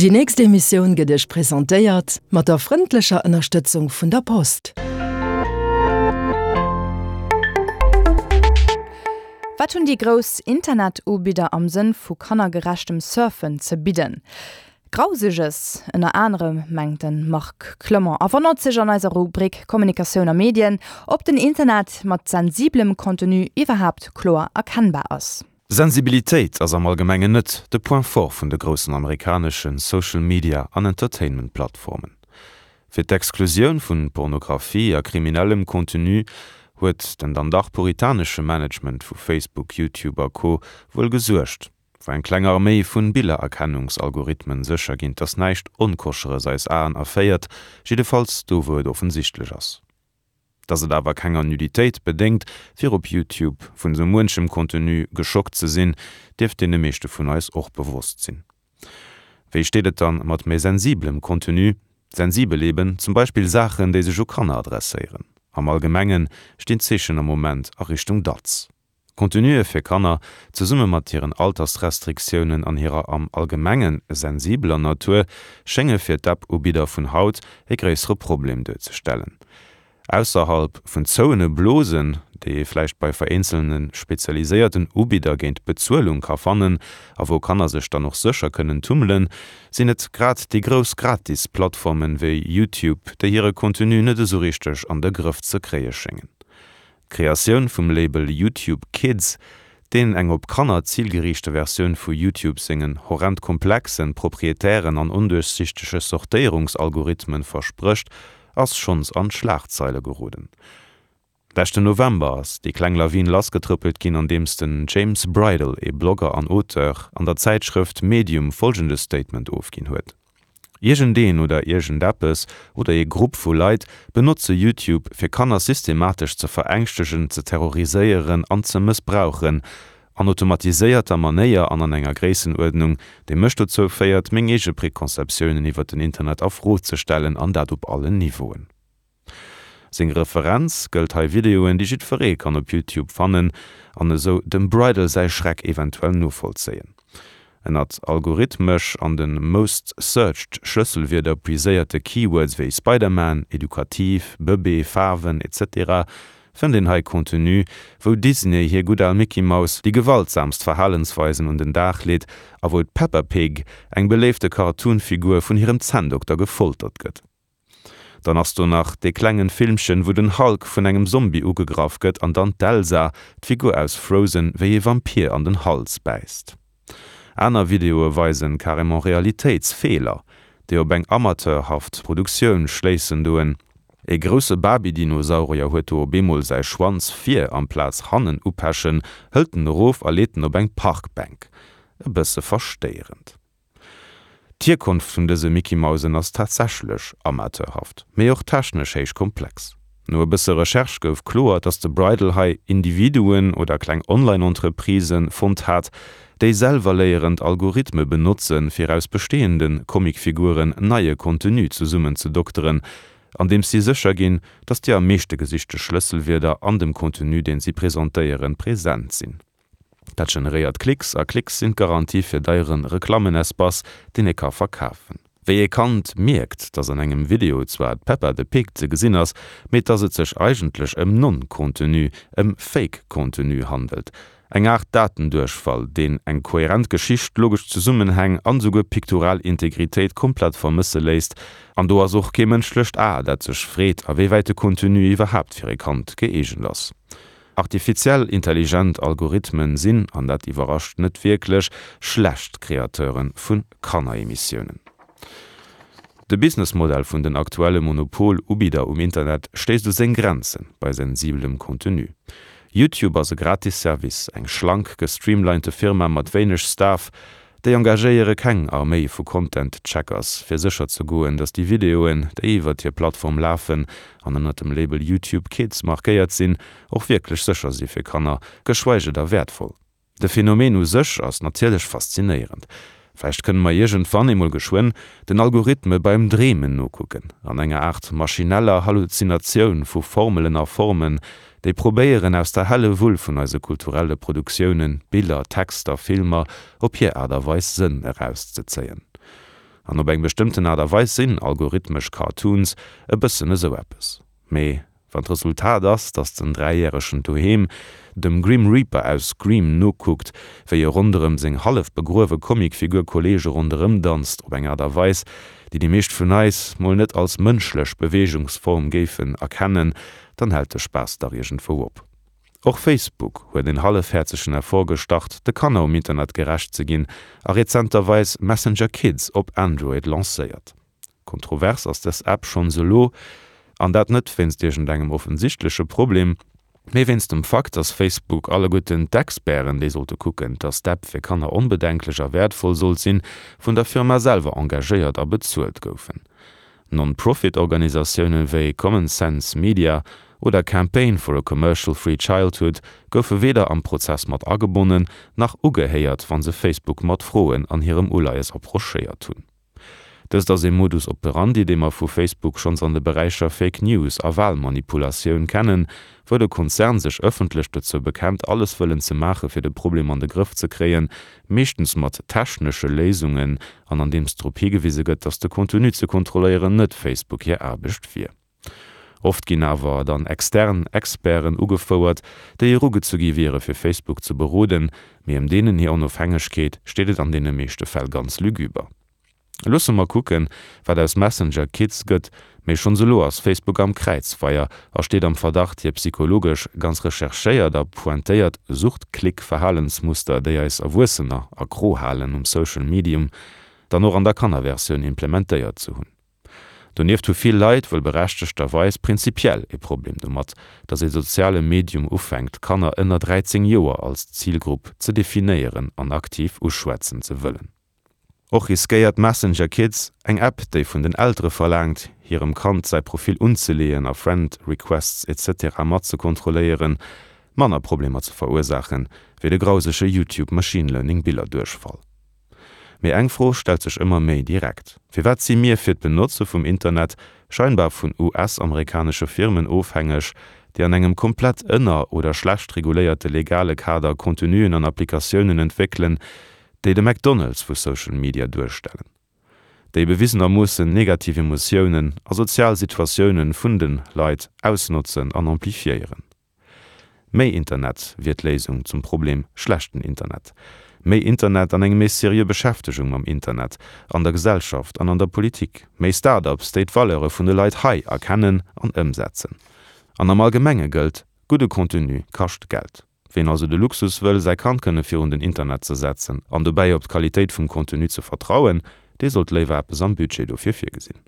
Déi nächst Emissioun gëtt Iech presentéiert mat der frëndlecher Ënnerstëtzung vun der Post. Wat hunn déi grouss Internet-Ubidder am Sënn vu kannergerechtem Surfen ze bidden? Grauseges ënner anerem, mengt de Marc Clement a wonnert sech an eiser Rubrik Kommunikatioun a Medien, ob den Internet mat sensiblem Contenu iwwerhaapt kloer erkennbar ass. Sensibilitéit ass am Allgemengen net de Point fort vun de groussen amerikanesche Social Media an Entertainment Plattformen. Fir d'Exklusioun vun Pornographie a kriminellem Contenu huet den dann dach puritanesche Management vu Facebook, YouTube a Co. Wuel gesuergt, wou eng kleng Arméi vun Billererkennungsalgorithmen sécher ginn, dass näischt Onkoscheres eis Aen erféiert, jiddefalls do wou et offensichtlech ass. Dass et awer kenger Nuditéit bedéngt, fir op YouTube vun sou muenchem Contenu geschockt ze sinn, dierft deene meeschte vun eis och bewosst sinn. Wéi steet et dann mat méi sensiblem Contenu? Sensibel eben, zum Beispill Saachen, déi sech u Kanner adresséieren. Am Allgemengen stinn d'Zeechen am Moment a Richtung Datz. Contenue fir Kanner, zesumme mat hiren Altersrestriktiounen an hirer am Allgemenge sensibeler Natur, schénge fir d'App-Ubidder vun haut e gréissere Problem duerzestellen. Ausserhalb vun zouene Blosen, déi ee vläicht bei vereenzelne spezialiséierten Ubidder géint Bezuelung ka fannen a wou Kanner sech dann och sécher kënnen tummelen, sinn et grad déi grouss Gratis-Plattformen wéi YouTube, déi hire Contenu net esou richteg an de Grëff ze kréie schéngen. D'Kreatioun vum Label YouTube Kids, deen eng op Kanner zilgeriichte Versioun vu YouTube sengen horrend komplexen, proprietären an onduerchsichtege Sortéierungsalgorithmen versprécht, ass schonns an d'Schlagzeile geroden. Leschten November ass déi kleng Lawin lassgetrëppelt ginn, andeems den James Bridle, ee Blogger an Auteur, an der Zäitschrëft Medium folgende Statement ofginn huet. Iergendeen oder iergendeppes oder ee Grupp vu Leit benotze YouTube fir Kanner systematesch ze verängschtegen, ze terroriséieren an ze mëssbrauchen, an automatiséierter Manéier an an enger Gréissenuerdnung, déi mech dozou féiert, meng eege Preconceptiounen iwwer den Internet a Fro ze stellen, an dat op allen Niveauen. Seng Referenz gëllt hei Videoen, déi jiddweree kann op YouTube fannen an esou dem Bridle säi Schreck eventuell novollzéien. Ënnert algorithmesch an de most searched Schlësselwierder puiséierte Keywords wéi Spider-Man, edukativ, Bëbee, Faarwen, etc. Fënnt een hei Contenu, wou Disney hir gutt al Mickey Mouse déi gewaltsamst Verhalensweisen un den Dag leet a wou d'Peppa Pig, eng beléifte Cartoon-Figur, vun hirem Zänndokter gefoltert gëtt. Dann ass do nach dee klengen Filmchen wou den Hulk vun engem Zombie ugegraff gëtt an dann d'Elsa, d'Figur aus Frozen, wéi ee Vampir an den Hals bäisst. Aner Videoe weisen carrément Realitéitsfeeler, déi op eng amateurhaft Produktioun schléissen doen. Ee grousse Barbie-Dinosaurier huet do op eemol säi Schwanz vir amplaz hannen upechen, hëlt en erof a leet en op eng Parkbänk. E bësse verstéierend. D'Hierkonft vun dëse Mickey-Mausen ass tatsächlech amateurhaft, mee och technesch héich komplex. No e bësse Recherche gouf kloer, dass de Bridle hei Individuen oder kleng Online-Entreprisë fonnt hat, déi selwerléierend Algorithme benotzen, fir aus bestehende Comicfiguren neie Contenu zesummenzedokteren, andeems si sécher ginn, dass déi am meeschte gesichte Schlësselwierder an dem Contenu, deen si presentéieren, present sinn. Dat generéiert Klicks, a Klicks sinn d'Garantie fir deiere Reklammenespace, deen ee ka verkafen. Wéi ee Kand mierkt, dass an engem Video zwar d'Peppa the Pig ze gesinn ass, mee dass et sech eigentlech ëm Non-Contenu, ëm Fake-Contenu handelt. Eng Aart Datenduerchfall, deen eng kohärent Geschicht, logesch Zesummenhäng an esouguer piktoral Integritéit komplett vermësse léisst. An do ass och kee mënschlecht A, dat sech freet, a wéi wäit de Contenu iwwerhaapt fir e Kand gëeegent ass. Artifiziell intelligent Algorithmen sinn, an dat iwwerrascht net wierklech, schlecht Kreateure vu Kanneremissiounen. De Businessmodell vun den aktuelle Monopol-Ubidder um Internet stéisst u seng Grenze bei sensibelem Contenu. YouTube ass e gratis Service, eng schlank gestreamlinete Firma mat wéineg Staff, Déi engagéiere keng Arméi vu Content Checkers, fir sécher ze goen, datt déi Videoen, déi iwwert hir Plattform lafen an ënnert dem Label YouTube Kids markéiert sinn, och wierklech sécher si fir Kanner, geschweige da wäertvoll. De Phänomen u sech ass natierlech faszinéierend. Vläicht kënne mer iergendwann eemol geschwënn den Algorithme beim Dreemen nokucken, an enger Aart maschineller Halluzinatioun vu Formelen a Formen, déi probéieren aus der helle Wull vun eise kulturelle Produktiounen, Biller, Texter, Filmer, op hir Aart a Weis Sënn erauszezéien. An op eng bestëmmten Aart a Weis sinn algorithmesch Cartoons e bëssen esou eppes. Mee wann d'Resultat ass, dass den Dräijäregen doheem dem Grim Reaper aus Scream nokuckt, wéi e ronderëm seng hallef begruewe Comicfigur Kolleege ronderëm danzt op eng Aart a Weis, déi déi meescht vun eis mol net als mënschlech Beweegungsform géifen erkennen, dann hält de Spaass dach iergendwou op. Och Facebook huet en hallefhäerzegen Effort gestart, de Kanner um Internet gerecht ze ginn a rezenterweis Messenger Kids op Android lancéiert. Kontrovers ass dës App schonns elo, an dat net wéinst iergendengem offensichtleche Problem, mee wéinst dem Fakt, dass Facebook alleguerten d'Experten, déi sollte kucken, dass d'App fir Kanner onbedenklech a wäertvoll sollt sinn, vun der Firma selwer engagéiert a bezuelt goufen. Non-Profit-Organisatioune wéi Common Sense Media oder Campaign for a Commercial Free Childhood goufe weder am Prozess mat agebonnen, nach ugehéiert, wa se Facebook mat Froen an hirem Uleies approchéiert hunn. Dëst ass ee Modus operandi, dee mer vu Facebook schonns an de Beräicher Fake News a Walmanipulatioun kennen, wou de Konzern sech ëffentlech dozou bekennt, alles wëllen ze maache fir de Problem an de Grëff ze kréien, meeschtens mat technesche Léisungen an andeems drop higewise gëtt, datt de Contenu ze kontrolléieren net Facebook hir Aarbecht wier. Oft ginn awer dann extern Experten ugefouert, déi erugezu gi wiere fir Facebook ze beroden, mee ëm deenen hir Onofhängegkeet steet et an deene meeschte Fäll ganz lügüber. Loosse mer kucken, wat aus Messenger Kids gëtt, mee schonns elo ass Facebook am Kräizfeier a steet am Verdacht, hir psychologesch ganz recherchéiert a pointéiert Suchtklick-Verhalensmuster, déi eis Erwuessener accro halen um Social Medium, dann och an der Kannerversioun implementéiert ze hunn. Donieft hu vill Leit, wuel berechtegterweis, prinzipiell e Problem domat, datt ee soziale Medium ufänkt, Kanner ënner 13 Joer als Zilgrupp ze definéieren an aktiv uschwätzen ze wëllen. Och riskéiert Messenger Kids, eng App, déi vun den Eltere verlaangt, hirem Kand säi Profil unzeleeën a Friend Requests etc. Mat ze kontrolléieren, manner Problemer ze verursaachen, wéi de grausege YouTube Machine Learning Billerduerchfall. Mee eng Fro stellt sech ëmmer méi direkt, Firwat si mir fir d'Benotze vum Internet scheinbar vun US-amerikanesche Firmen ofhängeg, déi an engem komplett ënner oder schlecht reguléierte legale Kader Contenuen an Applikatiounen entwéckelen, déi de McDonald's vu Social Media duerstellen, déi bewisenermoossen negativ Emotiounen a sozial Situatiounen vun de Leit ausnotzen an amplifiéieren. Méi Internet wier d'Léisung zum Problem schlechten Internet. Méi Internet an eng méi seriö Beschäftegung mam Internet an der Gesellschaft an an der Politik. Méi Start-ups, déi d'Valeure vun de Leit hei erkennen an ëmsetzen. An am Allgemenge gëllt, Gudde Contenu kascht Geld. Ween also de Luxus wëll, säi Kand kënne virun den Internet ze setzen an dobäi op d'Qualitéit vum Contenu ze vertrauen, dee sollt léiwer eppes am Budget dofir virgesinn.